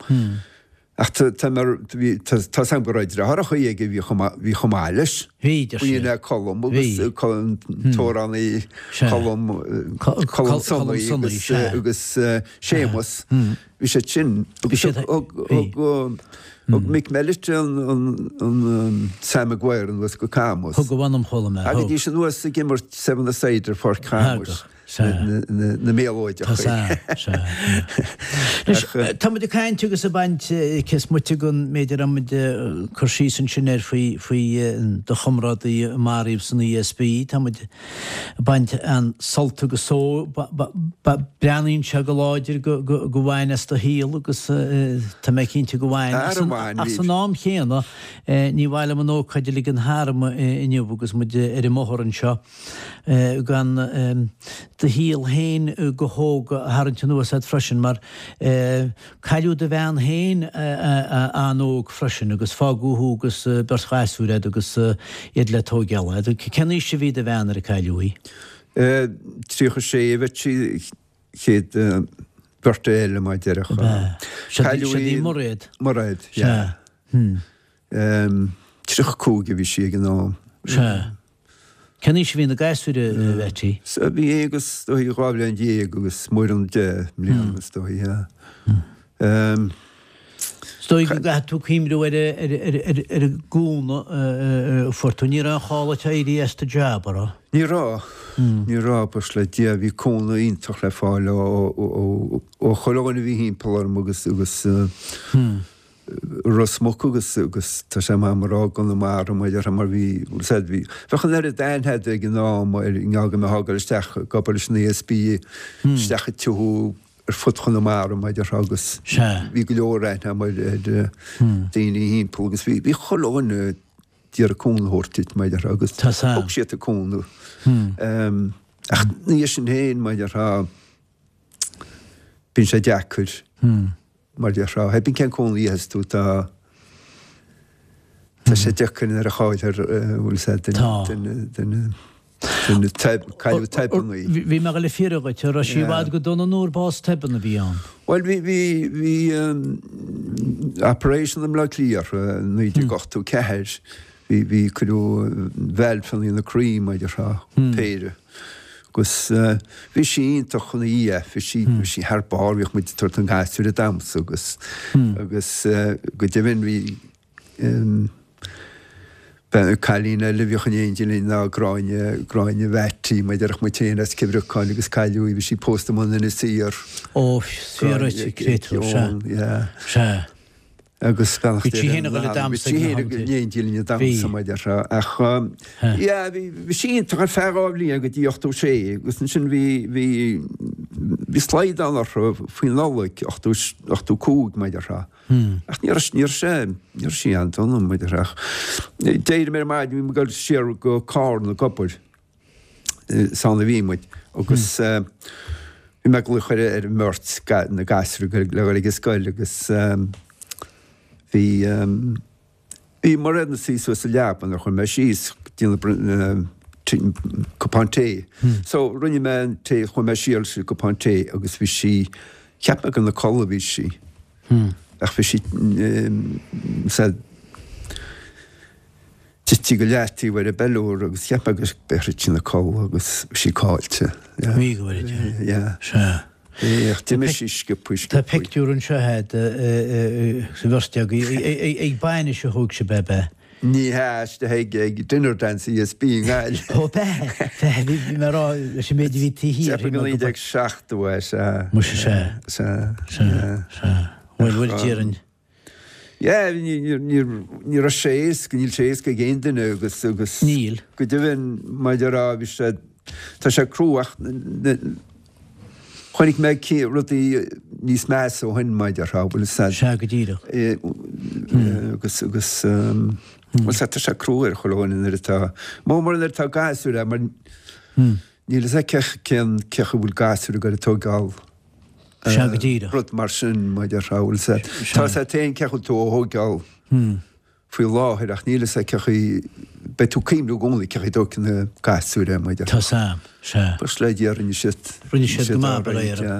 Ach tá tá mar bhí tá tá 's a'm go raibh deartháireacha aige a bhí chomh maith bhí chomh maith leis. Bhí, deir siad. Bhí Colm agus Bhí. Colm Hmm. t-amhránaí Sea. Colm Co- Colm Col- Colm Sonnaí Sonnaí, agus sea. agus Séamus. Hmm. Bhí siad sin Bhí agus siad thug bhí. thug thug Mick Mellett an an an Sam Maguire anuas go Camus. Thug a mh'anam chuala mé, thug. Thagaidís anuas ag imirt seven a side ar Pháirc Chamuis. Thagadh. Sea. na méalóideacha. Tá sea, sea. Anois, tá muid ag caint agus ag baint cés moite den méid a raibh muid ag cur síos ansin air faoi, faoi do chomrádaí a maraíodh san ESB. Tá muid ag baint an-sult agus só, breathnaíonn sé go láidir go, go, go bhain as do shaol agus tá mé cinnte go bhain. Ach san am chéanna, ní mhaith liom an ócáid a ligean tharam inniu agus muid ar an mbóthar anseo. gan do shaol féin go hóg a tharraingt anuas ort freisin, mar cailleadh do bhean féin an-óg freisin agus fágadh thú agus beirt ghasúr agat agus iad le tóigeáil. Cén aois a bhí do bhean nuair a cailleadh í? 36 a bheadh sí chéad bheirt eile mar déarfá. Cailleadh í Mairéad. Mairéad, sea. 35 a bhí sí ag an am. Sea. Cén aois a bhí na gasúir, a Mheaití? Sea, bhí Aonghus, is dóigh, 12 bhliain agus Muireann 10 mbliana, is dóigh, yeah. Is dóigh go gcaithfidh tú cuimhniú ar ar an gcúnamh a fuair tú. Ní raibh aon chall duit éirí as do jab, an raibh? Ní raibh. Ní raibh, buíochas le Dia. Bhí cúnamh iontach le fáil ó ó chuile dhuine a bhí thimpeall orm agus agus Ros Muc agus agus tá sé maith a rá i gConamara mar déarfá mar bhí bhfuil 's a'd bhí bheadh an oiread aithne a'd ag an am ar i ngeall go mbeifeá ag dul isteach ag obair leis an ESB isteach i dtithe ar fud Chonamara mar déarfá agus bhí go leor aithne a'm ar ar daoine thimpeall agus bhí bhí chuile dhuine d'iarraidh cúnamh a thabhairt duit mar déarfá agus thug siad an cúnamh. Ach ina dhiaidh sin féin mar déarfá bíonn sé deacair. Mar déarfá, pé bith cén cúnamh a fhaigheas tú, tá tá sé deacair nuair a chailltear, bhfuil 's a'd, duine, duine, duine, cailleadh tobann í. Bhí mé ag dul a fiafraí dhuit, an raibh sí i bhfad go dona nó ar bás tobann a bhí ann? Bhuel, bhí, bhí, bhí operation i mBleá Cliath i 1984, bhí, bhí, cuireadh valve ina croí, mar déarfá, péire. Agus bhí sí iontach ina dhiaidh, bhí sí, bhí sí thar barr, bhíodh muid ag tabhairt na ngasúr damsa agus, agus go deimhin bhí cailín eile a bhíodh in éindí linn ná Gráinne, Gráinne Mheaití, mar a déarfadh muid féin as Cill Bhriocáin agus cailleadh í, bhí sí pósta amuigh in Inis Oírr. Ó, fíor duit, créatúr, sea, sea. Agus beannacht Bhí sí féin ag dul ag damhsa ag na hamanta. Bhí sí féin in éindí linn ag damhsa mar a déarfá. Ach yeah, bhí bhí sí iontach ar feadh 2 bhliain go dtí 86 agus ansin bhí bhí bhí slaghdán orthu faoi Nollaig 80 85 mar a déarfá. Ach ní raibh ní raibh sé ní raibh sí an-dona mar a déarfá. Ach d'éirigh mé ar maidin bhí mé ag dul siar go Carna ag obair. Is ann a bhí muid agus bhí mé ag glaoch ar ar an mbeirt na gasúir le dhul ag an scoil agus bhí bhí Mairéad ina suí suas sa leaba nuair a chuaigh mé síos ag déanamh cupán tae. So rinne mé an tae, chuaigh mé siar leis an gcupán tae agus bhí sí, cheap mé gur ina codladh a bhí sí ach bhí sí sa Tite go leataobh ar an bpeiliúr agus cheap mé go raibh sí ina codladh agus bhí sí caillte. Bhí go bhfuil yeah. Yeah. Sea. Ach d'imigh sí sciobtha sciobtha. Tá pictiúr anseo agat sa bheirt agaibh ag bainis a thóg sibh ab ea? Ní hea, istigh ag ag dinner dance ESB i nGaillimh. Ó b'ea, b'ea, bhí mé ag rá leis an méid a bhí taobh thiar. Cheapfainn go 1970 é, sea. Muise sea. Sea. Sea. Sea. Bhuel, bhuel, déarfainn. Yeah, ní raibh sé éasca, níl sé éasca ag aon duine agus, agus. Níl. Go deimhin, mar a déarfá, bhí sé, tá sé crua ach chonaic mé rudaí níos measa ó shin, mar a déarfá, bhfuil fhios a'd. Sea, go díreach. Agus, agus, bhfuil fhios a'd, tá sé crua ar chuile dhuine nuair atá, mór mór nuair atá gasúir a'd, mar níl fhios a'd cén, cén chaoi a bhfuil gasúir ag dul a tóigeáil. Sea, go díreach. Rud mar sin, mar a déarfá, bhfuil fhios a'd. Tá fhios a'd féin cén chaoi a bhfuil tú á thóigeáil faoi láthair ach níl fhios a'd cén chaoi, beidh tú ag cuimhniú i gcónaí cén chaoi a dtógfaidh na gasúir é, mar a déarfá. Tá fhios a'm, sea. Buíochas le Dia, rinne siad. Rinne siad go maith, bail ó Dhia orthu.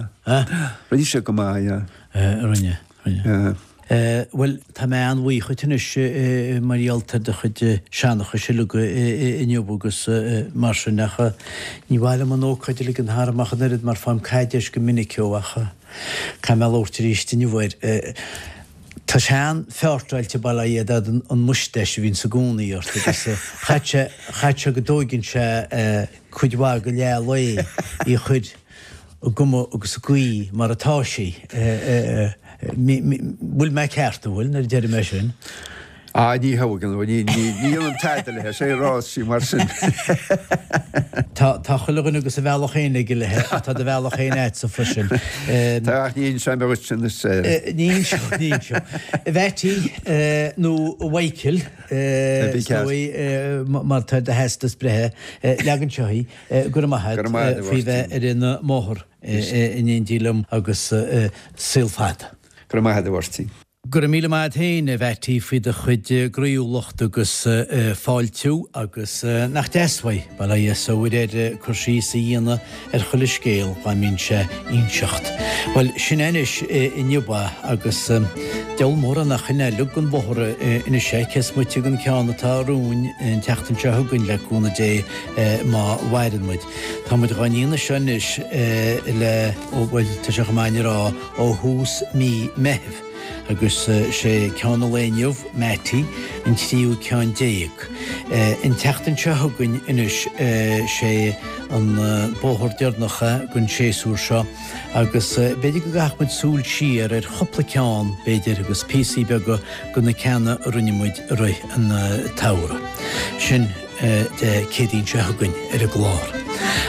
Rinne siad go maith, yeah. Rinne, rinne. Bhuel, tá mé an-bhuíoch dhuit anois mar gheall ar do chuid seanchais uilig inniu agus mar sin ach ní mhaith liom an ócáid a ligean tharam ach an oiread mar faighim caidéis go minic ó ach caithfidh mé labhairt arís inniu air. Tá sé an-fheortáilte bail ó Dhia ort an moustache a bhíonns i gcónaí ort agus chaith sé, chaith sé go dtóigeann sé cuid mhaith de leath lae í a chur i gcuma agus i gcaoi mar atá sí. Bhfuil mé ceart, an bhfuil, nuair a deirim é sin? Ah, ní thógann, ní dhéanaim tada léi, sé a rás sí mar sin. Tá, tá chuile dhuine agus a bhealach féin aige léi, ach tá do bhealach féin a'dsa freisin. Tá, ach ní inseoidh mé dhuit anois é. Ní inseoidh, ní inseoidh. A Mheaití, nó a Mhichael, is dóigh, mar tá ar do theastas breithe, leag anseo í. Go raibh maith agat faoi bheith ar an mbóthar in éindí liom agus saol fada. Go raibh maith agat a Mháirtín. Go raibh míle maith agat féin, a Mheaití, faoi do chuid groíúlacht agus fáiltiú agus nach deas uaidh, bail ó Dhia is air, cur síos a dhéanamh ar chuile scéal dá mbíonn sé inseacht. Bhuel, sin é anois inniu é agus deabhal mór é nach in é uilig den bhóthar anois é, cé is moite den ceann atá romhainn an tseachtain seo chugainn le cúnamh Dé. má mhaireann muid. Tá muid dhá ndéanamh seo anois le, ó, bhuel, tá sé chomh maith a rá, ó thús mí Meithimh, agus sé ceann an lae inniu, Mattie, an tríú ceann déag. An tseachtain seo chugainn anois, sé an bóthar deireanach é den séasúr seo, agus b'fhéidir go gcaithfeadh muid súil siar ar chúpla ceann, b'fhéidir, agus píosaí beaga de na ceanna a rinne muid i rith an tsamhraidh. Sin. Dé Céadaoin seo chugainn ar an gclár.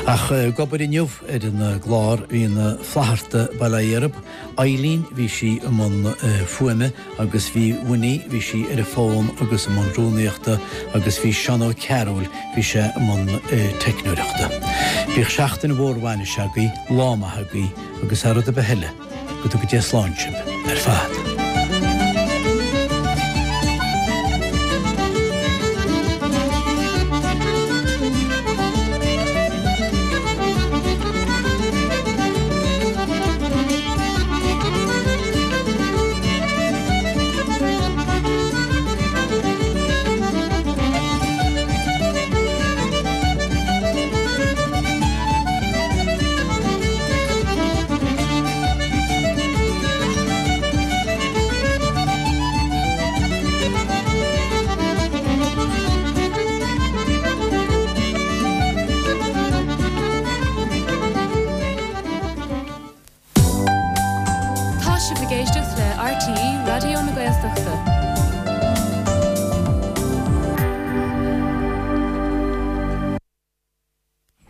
Ach ag obair inniu ar an gclár bhí na Flatharta bail ó Dhia orthu, Eileen bhí sí i mbun fuaime agus bhí Winnie bhí sí ar an bhfón agus i mbun rúnaíochta agus bhí Seán Ó Cearúil bhí sé i mbun teicneoireachta. Bíodh seachtain mhór bhainise agaibh, lá maith agaibh agus thar rud ar bith eile, Go dtuga Dia slán sibh ar fad.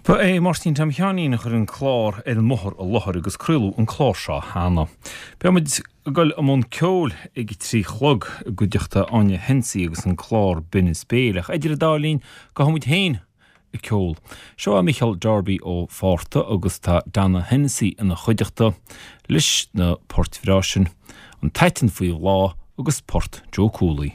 Ba é Máirtín Tom Sheáinín a chuir an clár ar an mbóthar i láthair agus craoladh an clár seo cheana. Beidh muid ag dul i mbun ceoil ag a 3 chlog i gcuideachta Áine Hennessy agus an clár Binn is Béil ach idir an dá linn gabhfaidh muid féin ag ceol. Seo é Micheál Darby ó Phárta agus tá Donna Hennessy ina chuideachta leis na poirt bhreá sin, An tAiteann Faoi Bhláth agus Port Joe Cooley.